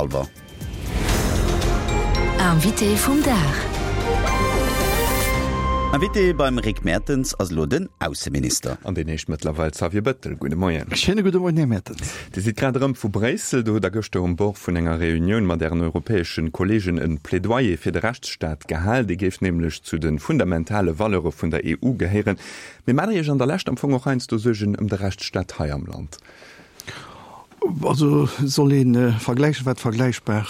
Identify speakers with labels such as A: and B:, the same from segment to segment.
A: Alwer.
B: Invité vum Dag.
A: Invité beim Rick Mertens ass elo den Ausseminister.
C: An deen heescht mëttlerweil Xavier Bettel. Gudde Moien.
D: Schéine gudde Moien, Här Mertens.
C: Dir sidd grad erëm vu Bréissel. Do hutt Der gëschter um Bord vun enger Reunioun mat Ären europäesche Kolleegen e Plädoyer fir de Rechtsstaat gehal. Dee géif nämlech zu de fundamentale Valeure vun der EU gehéieren. Mee maacht Der Iech an der Lescht am Fong och heiansdo Suergen ëm de Rechtsstaat hei am Land?
D: Also soll ee vergläichen, wat vergläichbar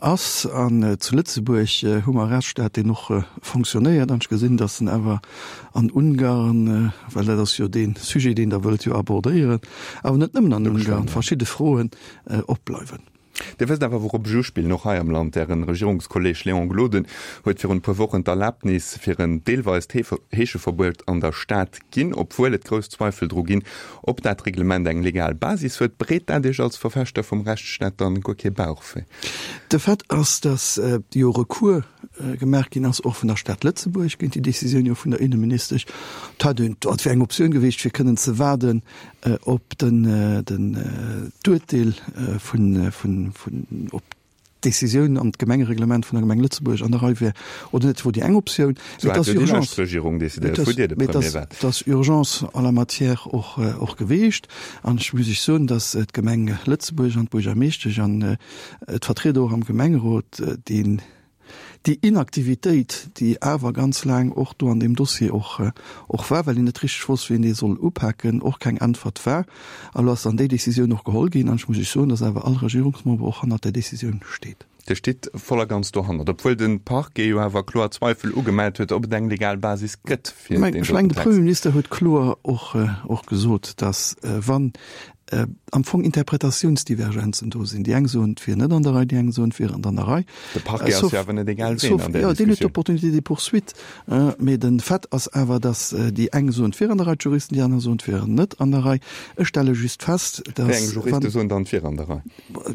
D: ass. An zu Lëtzebuerg hu mer e Rechtsstaat, deen och fonctionnéiert. An ech gesinn, datt en awer an Ungarn, well dat ass jo dee Sujet, deen Der wëllt jo abordéieren, awer net nëmmen an Ungarn, verschidde Froen opbleiwen.
C: Dir wësst awer, wourop ech uspillen, och hei am Land. Ären Regierungskolleg Léon Gloden huet virun e puer Wochen d'Erlaabnis fir en deelweist Heescheverbuet an der Stad ginn, obwuel et grouss Zweifel dru ginn, ob dat Reglement eng legal Basis huet. Bereet dat Iech als Verfechter vum Rechtsstaat dann guer kee Bauchwéi?
D: De Fait ass, datt jo Recours gemaach ginn ass, och vun der Stad Lëtzebuerg géint déi Décisioun jo vun der Inneministesch. Dat wär eng Optioun gewiescht, fir kënnen ze waarden, op den d'Urteel vun vun vun op d'Décisioun an d'Gemengereglement vun der Gemeng Lëtzebuerg an der Rei wär oder net, wor déi eng Optioun.
C: Mee et ass Urgence,
D: mee et ass Urgence en la matière och och geweecht. An ech muss Iech soen, datt d'Gemeng Lëtzebuerg an d'Buergermeeschtesch an d'Vertrieder och am Gemengerot deen Déi Inaktivitéit, déi awer ganz laang och do an deem Dossier och och war, well een net richteg wosst, wéi een dee soll upaken, och keng Äntwert war. A lo ass dann déi Décisioun och geholl ginn. An ech muss Iech soen, dass awer all Regierungsmember och hannert där Décisioun steet.
C: Dir stitt voll a ganz dohannert, obwuel de Parquet jo awer kloer Zweifel ugemellt huet, ob et eng legal Basis gëtt
D: fir deen doten Text. Ech mengen, de Premierminister huet kloer och och gesot, dass wann am Fong Interpretatiounsdivergenzen do sinn. Déi eng soen, et wier net an der Rei, déi eng soen, et wier an der Rei.
C: De Parquet ass jo awer net egal ween an där
D: Diskussioun. Jo, deen huet d'Opportunité des poursuites. Mee de Fait ass awer, datt déi eng soen, et wier an der Rei, d'Juristen, déi aner soen, et wier net an der Rei. Ech stelle just fest,
C: datt. Wéi eng Juriste soen dann, et wier an der Rei?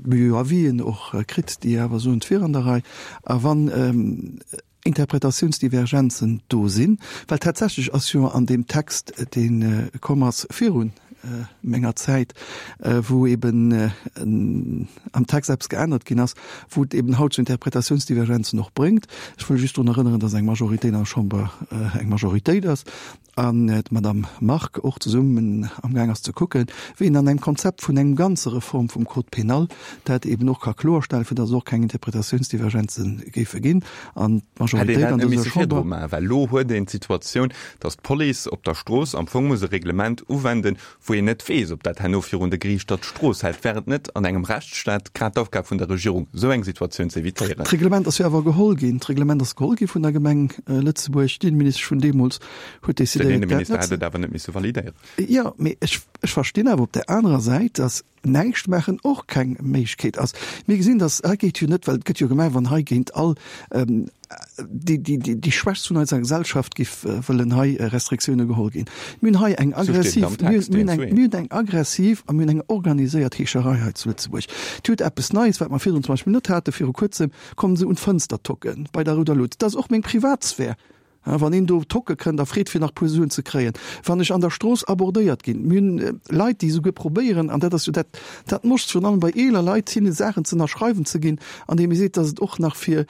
D: Mir hu jo Avisen och kritt, déi awer soen, et wier an der Rei. A wann Interpretatiounsdivergenzen do sinn, well tatsächlech ass jo an deem Text, dee komm ass viru menger Zäit, wou eben am Text eppes geännert ginn ass, wou et eben haut zu Interpretatiounsdivergenzen och bréngt. Ech wëll just drun erënneren, dass eng Majoritéit an der Chamber eng Majoritéit ass an d'Madame Margue och zesummen amgaang ass ze kucken, wéi een an engem Konzept vun engem ganze Reform vum Code pénal dat eben och ka kloerstellen, fir datt et och keng Interpretatiounsdivergenze géife ginn an
C: d'Majoritéit an dëser Chamber. Well elo huet een d'Situatioun, datt d'Police op der Strooss am Fong muss e Reglement uwenden, wou een net weess, ob dat herno virun de Geriichter d'Strooss hält. Wär et net an engem Rechtsstaat grad d'Aufgab vun der Regierung, esou eng Situatioun ze evitéieren?
D: D'Reglement ass jo awer geholl ginn. D'Reglement ass geholl gi vun der Gemeng Lëtzebuerg. D'Inneministesch vun deemools huet
C: Den decidéiert, dat Inneminister net hätt et awer net misse validéieren.
D: Jo, mee ech, ech verstinn awer op där anerer Säit, datt näischt maachen och keng Méiglechkeet ass. Mir gesinn, datt hei geet jo net, well et gëtt jo gemaach, wann hei géint all déi, déi, déi, déi Schwächst vun eiser Gesellschaft giff wëllen hei Restriktioune geholl ginn. Mir hunn hei eng aggressiv, mir hunn eng, mir hunn eng aggressiv a mir hunn eng organiséiert Heescherei hei zu Lëtzebuerg. Dir hutt eppes Neies, wat mer virdrun zum Beispill net haten, viru kuerzem kommen se un d'Fënster tocken bei der Rouder Lut. Dat ass och meng Privatsphär. Wann een do tocke kënnt a freet fir nach puer Suen ze kréien, wann ech an der Strooss abordéiert ginn. Mir hunn Leit, déi esouguer probéieren, an dat ass jo dat, dat Moscht virun allem bei eeler Leit, hinne Saachen ze ënnerschreiwen ze ginn, andeem ee seet, datt et och nach fir,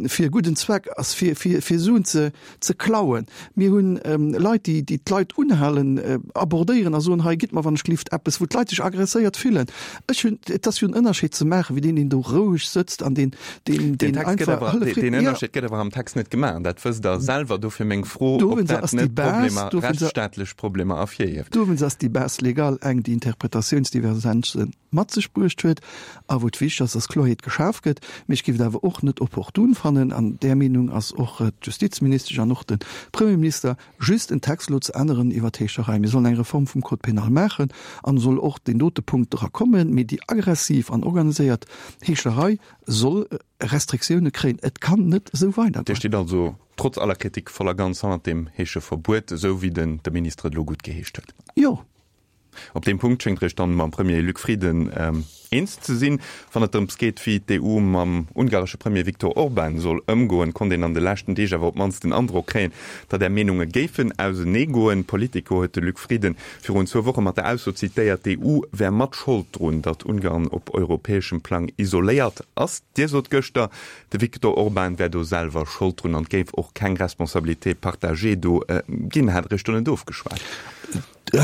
D: fir e gudden Zweck ass, fir, fir, fir Suen ze, ze klauen. Mir hunn Leit, déi, déi d'Leit unhalen, abordéieren a soen, hei gitt mer wann ech gelift eppes, wou d'Leit sech agresséiert fillen. Ech hunn, et ass jo en Ënnerscheed ze maachen, wéi deen, deen do roueg sëtzt an deen,
C: deen, deen einfach Hëllef kritt. Deen Ënnerscheed gëtt awer am Text net gemaach, an dat wësst Der selwer. Dofir meng Fro, ob dat net Problemer, rechtsstaatlech Problemer ervirhieft.
D: Dowéinst ass déi Base légale eng, déi Interpretatiounsdivergenze mat sech bruecht huet a wou et wichteg ass, dass Kloerheet geschaf gëtt. Mee ech géif et awer och net opportun fannen, an där Meenung ass och d'Justizministesch an och de Premierminister, just en Text elo ze änneren iwwer d'Heescherei. Mir sollen eng Reform vum Code pénal maachen an soll och deen dote Punkt dra kommen. Mee déi aggressiv an organiséiert Heescherei soll Restriktioune kréien. Et kann net esou weidergoen.
C: Dir stitt also trotz aller Kritik voll a ganz hannert deem Heescheverbuet, esou wéi den de Minister et elo guttgeheescht huet?
D: Jo.
C: Op deem Punkt schéngt Der Iech dann mam Premier Luc Frieden. Eens ze sinn. Wann et drëms geet, wéi d'EU mam ungaresche Premier Viktor Orban soll ëmgoen, konnt een an de leschten Deeg awer op d'mannst den Androck kréien, datt Är Meenunge géifen auseneegoen. Politico huet de Luc Frieden virun zwou Woche mat der Ausso zitéiert, d'EU wär mat Schold drun, datt Ungarn op europäeschem Plang isoléiert ass. Dir sot gëschter, de Viktor Orban wär do selwer Schold drun an et géif och keng Responsabilité partagée do ginn. Hat Der Iech do net ofgeschwat?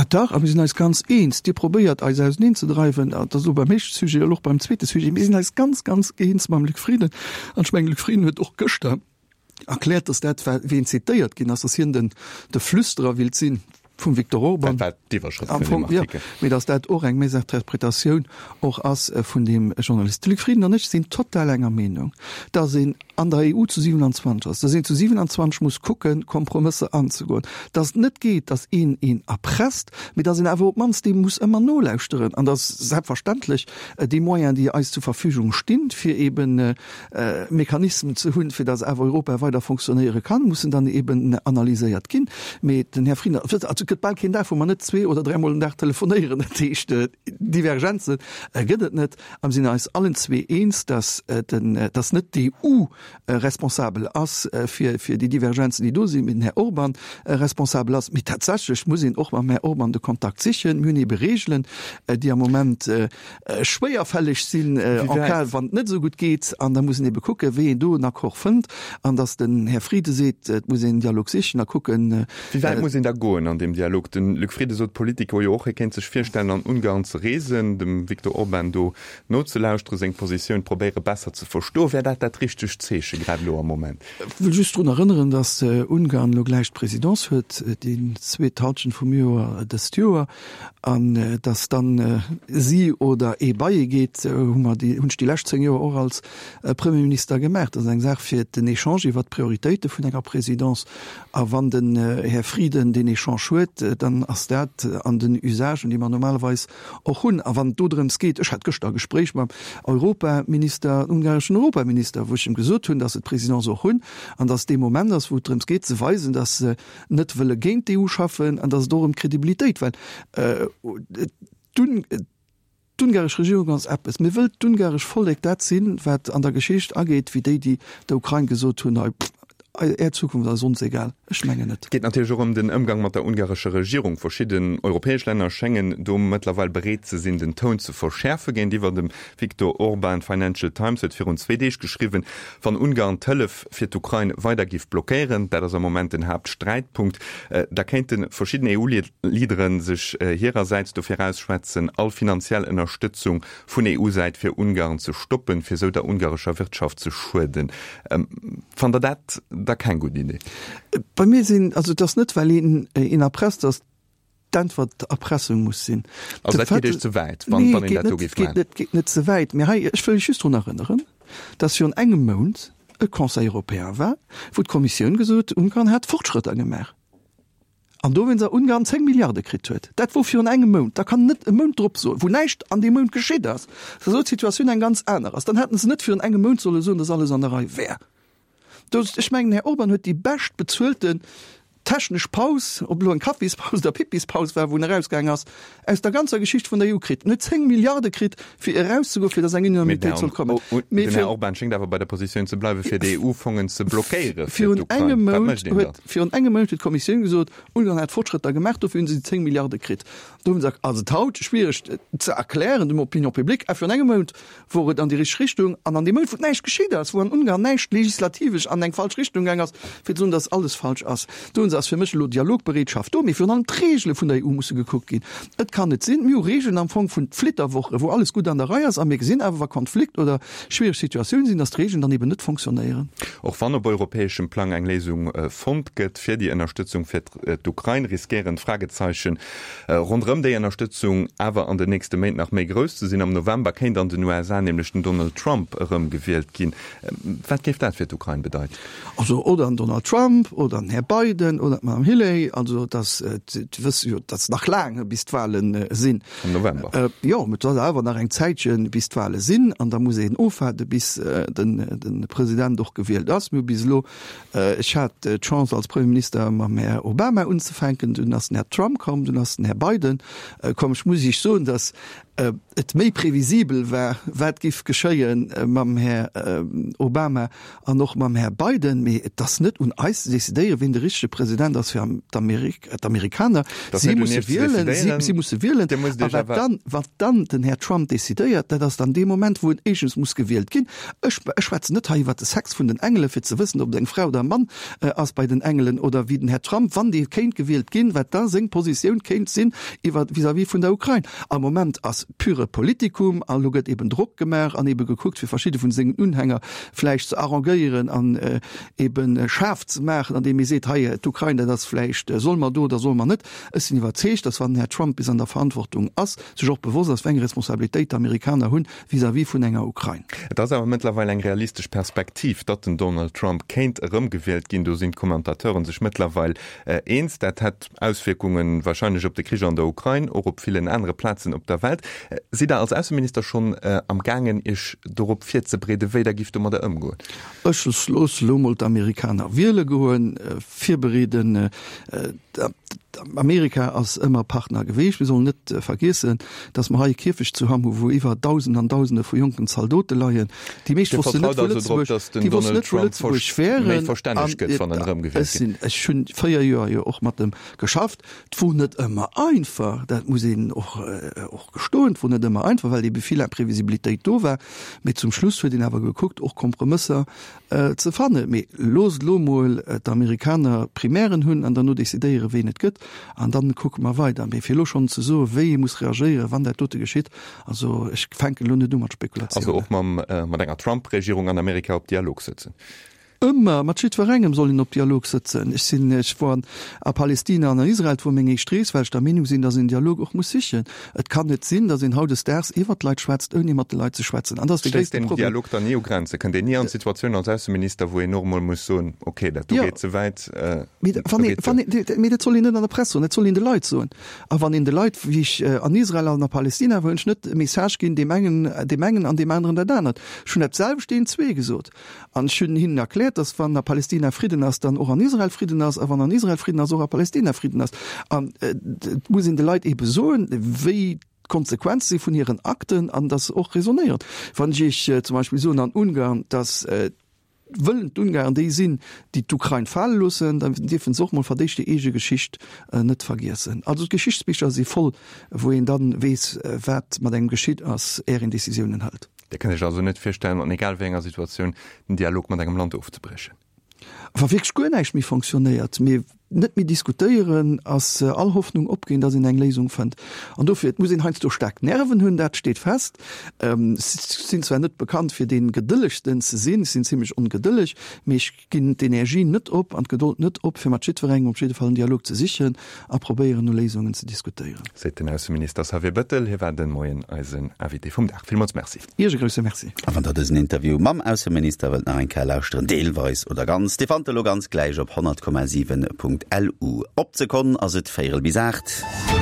D: Dach, a mir sinn eis ganz eens. Dir probéiert eis auseneen ze dreiwen, dat ass elo beim éischte Sujet, elo och beim zweete Sujet. Mir sinn eis ganz, ganz eens mam Luc Frieden. An ech mengen, de Luc Frieden huet och gëschter erkläert, datt dat, wéi en zitéiert ginn ass, datt hien den, de Flüsterer willt sinn vum Viktor Orban.
C: Dat war d'Iwwerschrëft vun deem Artikel.
D: Jo, mee datt dat och eng Mésinterpretatioun och ass vun deem Journalist. De Luc Frieden an ech sinn total enger Meenung, datt een an der EU zu 27 ass, datt een zu 27 muss kucken, Kompromësser anzegoen, datt et net geet, datt een een erpresst, mee datt een awer op d'mannst deem muss ëmmer nolauschteren an datt selbstverständlech déi Moyens, déi eis zur Verfügung stinn, fir eben Mechanismen ze hunn, fir datt awer Europa weider fonctionnéiere kann, mussen dann eben analyséiert ginn. Mee den Här Frieden, also et gëtt bal keen Dag, wou mer net zwee oder dräimol den Dag telefonéieren, dat heescht, Divergenze gëtt et net. A mir sinn eis allen zwee eens, dass dass net d'EU responsabel ass fir fir déi Divergenzen, déi do sinn, mee den Här Orban responsabel ass. Mee tatsächlech muss een och mam Här Orban de Kontakt sichen. Mir hunn ebe Regeln, déi am Moment schwéierfälleg sinn, en cas wann et net esou gutt geet. An da muss een ebe kucken, wéi een do en Accord fënnt. An dass den Här Frieden seet, et muss een en Dialog sichen a kucken,
C: Wéi wäit muss een da goen an deem Dialog? De Luc Frieden sot Politico jo och, hie kéint sech virstellen, an Ungarn ze reesen, dem Viktor Orban do nozelauschteren, seng Positioun probéiere besser ze verstoen. Wär dat dat richtegt Zeeche grad elo am Moment?
D: Ech wëll just drun erënneren, datt Ungarn elo gläich d'Presidence huet, déi zweet Halschent vum Joer dëst Joer, an datt dann si oder ee bei ee geet, hu mer déi, hunn ech déi lescht 10 Joer och als Premierminister gemaach. Dat ass eng Saach fir den Echange iwwert d'Prioritéite vun enger Presidence. A wann den Här Frieden deen Echange huet, dann ass dat an den Usagen, déi mer normalerweis och hunn. A wann et do drëms geet, ech hat gëschter e Gespréich mam Europaminister, ungareschen Europaminister, wou ech em gesot hunn, datt se d'Presidence och hunn an datt dee Moment ass, wou et drëms geet ze weisen, datt se net wëlle géint d'EU schaffen an datt et och ëm d'Kredibilitéit, well d'Ungaresch Regierung ass eppes, mee wëllt d'ungaresch Vollek dat sinn, wat an der Geschicht ageet wéi déi, déi der Ukrain gesot hunn, hei, Är Zukunft ass ons egal? Ech mengen net.
C: Et geet natierlech och ëm den Ëmgang mat der ungarescher Regierung. Verschidden europäesch Länner schéngen do mëttlerweil bereet ze sinn, den Toun ze verschäerfe géintiwwer dem Viktor Orban. D'Financial Times huet virun zwee Deeg geschriwwen, wann Ungarn d'Hëllef fir d'Ukrain weider géif blockéieren, dat ass am Moment den Haaptsträitpunkt, da kéinte verschidden EU-Leadere sech hirersäits dofir ausschwätzen, all finanziell Ënnerstëtzung vun EU-Säit fir Ungarn ze stoppen, fir esou der ungarescher Wirtschaft ze schueden. Fannt Der dat da keng gutt Idee?
D: Bei mir sinn, also et ass net well een een erpresst, datt d'Äntwert Erpressung muss sinn.
C: Also dat geet Iech ze wäit, wann een dat do géif
D: maachen? Nee, et geet net ze wäit. Mee hei, ech wëll Iech just drun erënneren, datt virun engem Mount e Conseil européen war, wou d'Kommissioun gesot huet, Ungarn hätt Fortschrëtter gemaach. An dowéinst a Ungarn 10 Milliarde kritt huet. Dat wor virun engem Mount. Da kann en net e Mount drop soen, wou näischt an deem Mount geschitt ass, dass elo d'Situatioun eng ganz aner ass. Dann hätten se net virun engem Mount solle soen, dass alles an der Rei wär. Do, ech mengen, den Här Orban huet déi bescht bezuelten technesch Paus, ob elo eng Kaffispaus oder Pippispaus war, wou en erausgaang ass, aus der ganzer Geschicht vun der EU kritt. En huet 10 Milliarde kritt, fir erauszegoen, fir dass eng Unanimitéit soll kommen.
C: Mee den Här Orban schéngt awer bei der Positioun ze bleiwen, fir déi EU-Fongen ze blockéiere
D: fir d'Ukrain. Wat mécht een da? Virun engem Mount huet d'Kommissioun gesot, Ungarn hätt Fortschrëtter gemaach, dofir hunn se déi 10 Milliarde kritt. Do hunn se, ass et haut schwiereg ze erklären dem Opinion publique, a virun engem Mount wor et an déi richteg Richtung. An an deem Mount, wou näischt geschitt ass, wou an Ungarn näischt legislativesch an eng falsch Richtung gaang ass, fir ze soen, datt alles falsch ass, do hunn se, ass fir mech elo Dialogbereetschaft do. Mee virun allem d'Regele vun der EU musse gekuckt ginn. Et kann net sinn, mir hu Regeln am Fong vun Flitterwoche, wou alles gutt an der Rei ass, a mir gesinn awer, wa Konflikt oder schwiereg Situatioun sinn, datt d'Regeln dann eben net fonctionnéieren.
C: Och wann op europäeschem Plang eng Léisung fonnt gëtt fir déi Ënnerstëtzung fir d'Ukrain, riskéieren d'Fragezeichen ronderëm déi Ënnerstëtzung awer an den nächste Méint nach méi grouss ze sinn. Am November kéint an den USA nämlech den Donald Trump erëmgewielt ginn. Wat géif dat fir d'Ukrain bedeiten?
D: Also oder den Donald Trump oder den Här Biden oder d'Madame Hilley, also dat wësse jo, dat ass nach laang bis d'Wahlen sinn.
C: Am November.
D: Jo, mä et ass awer nach eng Zäitche bis d'Wahle sinn an da muss een ofwaarde bis de President och gewielt ass. Mir hu bis elo, ech hat d'Chance als Premierminister mam Här Obama unzefänken, dunn ass den Här Trump komm, dunn ass den Här Biden komm. Ech muss Iech soen, datt. et méi previsibel war, wat giff geschéie mam Här Obama an och mam Här Biden. Mee et ass net un eis ze decidéieren, wien de richtege President ass fir d'Amerikaner. Si musse wielen, si musse wielen. A wat dann, wat dann den Här Trump decidéiert, dat ass dann dee Moment, wou en éischtens muss gewielt ginn. Ech, ech schwätzen net hei iwwert de Sex vun den Engele fir ze wëssen, ob et eng Fra oder e Mann ass bei den Engelen oder wéi den Här Trump, wann dee kéint gewielt ginn, wat da seng Positioun kéint sinn iwwer vis-à-vis vun der Ukrain. Am Moment ass pure Politikum a lo gëtt eben Drock gemaach an ebe gekuckt, fir verschidde vun sengen Unhänger vläicht ze arrangéieren an eben schaarf ze maachen, andeem ee seet, hei d'Ukrain, dat ass vläicht, solle mer do oder solle mer net. Ech sinn iwwerzeegt, datt wann den Här Trump bis an der Verantwortung ass, sech och bewosst ass, wéi eng Responsabilitéit d'Amerikaner hunn vis-à-vis vun enger Ukrain.
C: Et ass awer mëttlerweil eng realistesch Perspektiv, datt den Donald Trump kéint erëmgewielt ginn. Do sinn d'Kommentateuren sech mëttlerweil eens. Dat hätt Auswierkunge warscheinlech op de Krich an der Ukrain, och op villen anere Plazen op der Welt. Sidd Der als Ausseminister schonn am gaangen, Iech dorop virzebereeden, wéi Der gift domadder ëmgoen?
D: Ech loosse elo mol d'Amerikaner wiele goen, virbereeden. Amerika ass ëmmer Partner geweecht. Mir sollen net vergiessen, datt mer hei e Kierfecht zu Hamm hu wou iwwer Dausend an Dausende vu jonken Zaldote leien. Déi meescht wossten net, wou Lëtzebuerg, déi wossten net, wou Lëtzebuerg wären. An ech sinn, ech hunn 4 Joer jo och mat em geschafft. Et wor net ëmmer einfach, dat muss een och, och gestoen. Et wor net ëmmer einfach, well ebe vill Imprevisibilitéit do war. Mee zum Schluss huet een awer gekuckt, och Kompromësser ze fannen. Mee loosst elo mol d'Amerikaner d'Primären hunn an derno decidéieren, ween et gëtt, an dann kucke mer weider. Mee fir elo schonn ze soen, wéi ee muss reagéieren, wann dat dote geschitt, also ech fänken elo net u mat Spekulatiounen.
C: Also och mam, mat enger Trump-Regierung an Amerika op Dialog sëtzen?
D: Ëmmer, mat jiddwerengem soll een op Dialog sëtzen. Ech sinn, ech wor a Palestina an a Israel, et wor meng éischt Rees, well ech der Meenung sinn, datt een Dialog och muss sichen. Et kann net sinn, datt een hautdesdaags iwwert d'Leit schwätzt, ouni mat de Leit ze schwätzen. An dat ass de
C: Stéisst gréisste den Problem. Dialog dann ni u Grenze? Kënnt een ni an d'Situatioun als Ausseminister, wou een och emol muss soen, okay, dat do Jo. geet ze wäit,
D: Mee do wann ee, geet wann ee, mee dat soll een net an der Press soen, dat soll een de Leit soen. A wann een de Leit, wéi ech an Israel an a Palestina war, hunn ech net e Message ginn, deem engen deem engen an deem aneren dat anert. Ech hunn dat selwecht deenen zwee gesot. An ech hunn hinnen erkläert, datt wann a Palestina Fridden ass, dann och an Israel Fridden ass, a wann an Israel Fridden ass, och a Palestina Fridden ass. An et muss een de Leit eebe soen, wéi d'Konsequenze si vun hiren Akten an datt se och raisonnéieren. Wann ech Iech zum Beispill soen an Ungarn, datt wëllen d'Ungarn déi sinn, déi d'Ukrain fale loossen, da dierfe se och mol fir d'éischt déi eege Geschicht net vergiessen. Also d'Geschichtsbicher si voll, wou een da weess, wat mat engem geschitt ass, är een Decisiounen hëlt.
C: Dir kënnt Iech also net virstellen, an egal wéi enger Situatioun, den Dialog mat engem Land ofzebriechen?
D: Wa wierklech guer näischt méi fonctionnéiert, mir net méi diskutéieren, ass all Hoffnung opginn, datt een eng Léisung fënnt. An dofir, et muss een heiansdo staark Nerven hunn, dat steet fest. Ech sinn zwar net bekannt fir dee Gedëllegsten ze sinn, ech sinn zimlech ongedëlleg, mee ech ginn d'Energie net op an d'Gedold net op, fir mat jiddwerengem op jidde Fall en Dialog ze sichen a probéieren no Léisungen ze diskutéieren.
C: Seet den Ausseminister Xavier Bettel. Hie war de Moien eisen Invité vum Dag. Villmools Merci.
D: Iech e grousse Merci.
A: A wann der dësen Interview mam Ausseminister wëllt nach eng Kéier lauschteren, deelweis oder ganz, dee fannt der elo ganz gläich op 100,7.lu. Op d'Sekonn ass et véierel bis 8.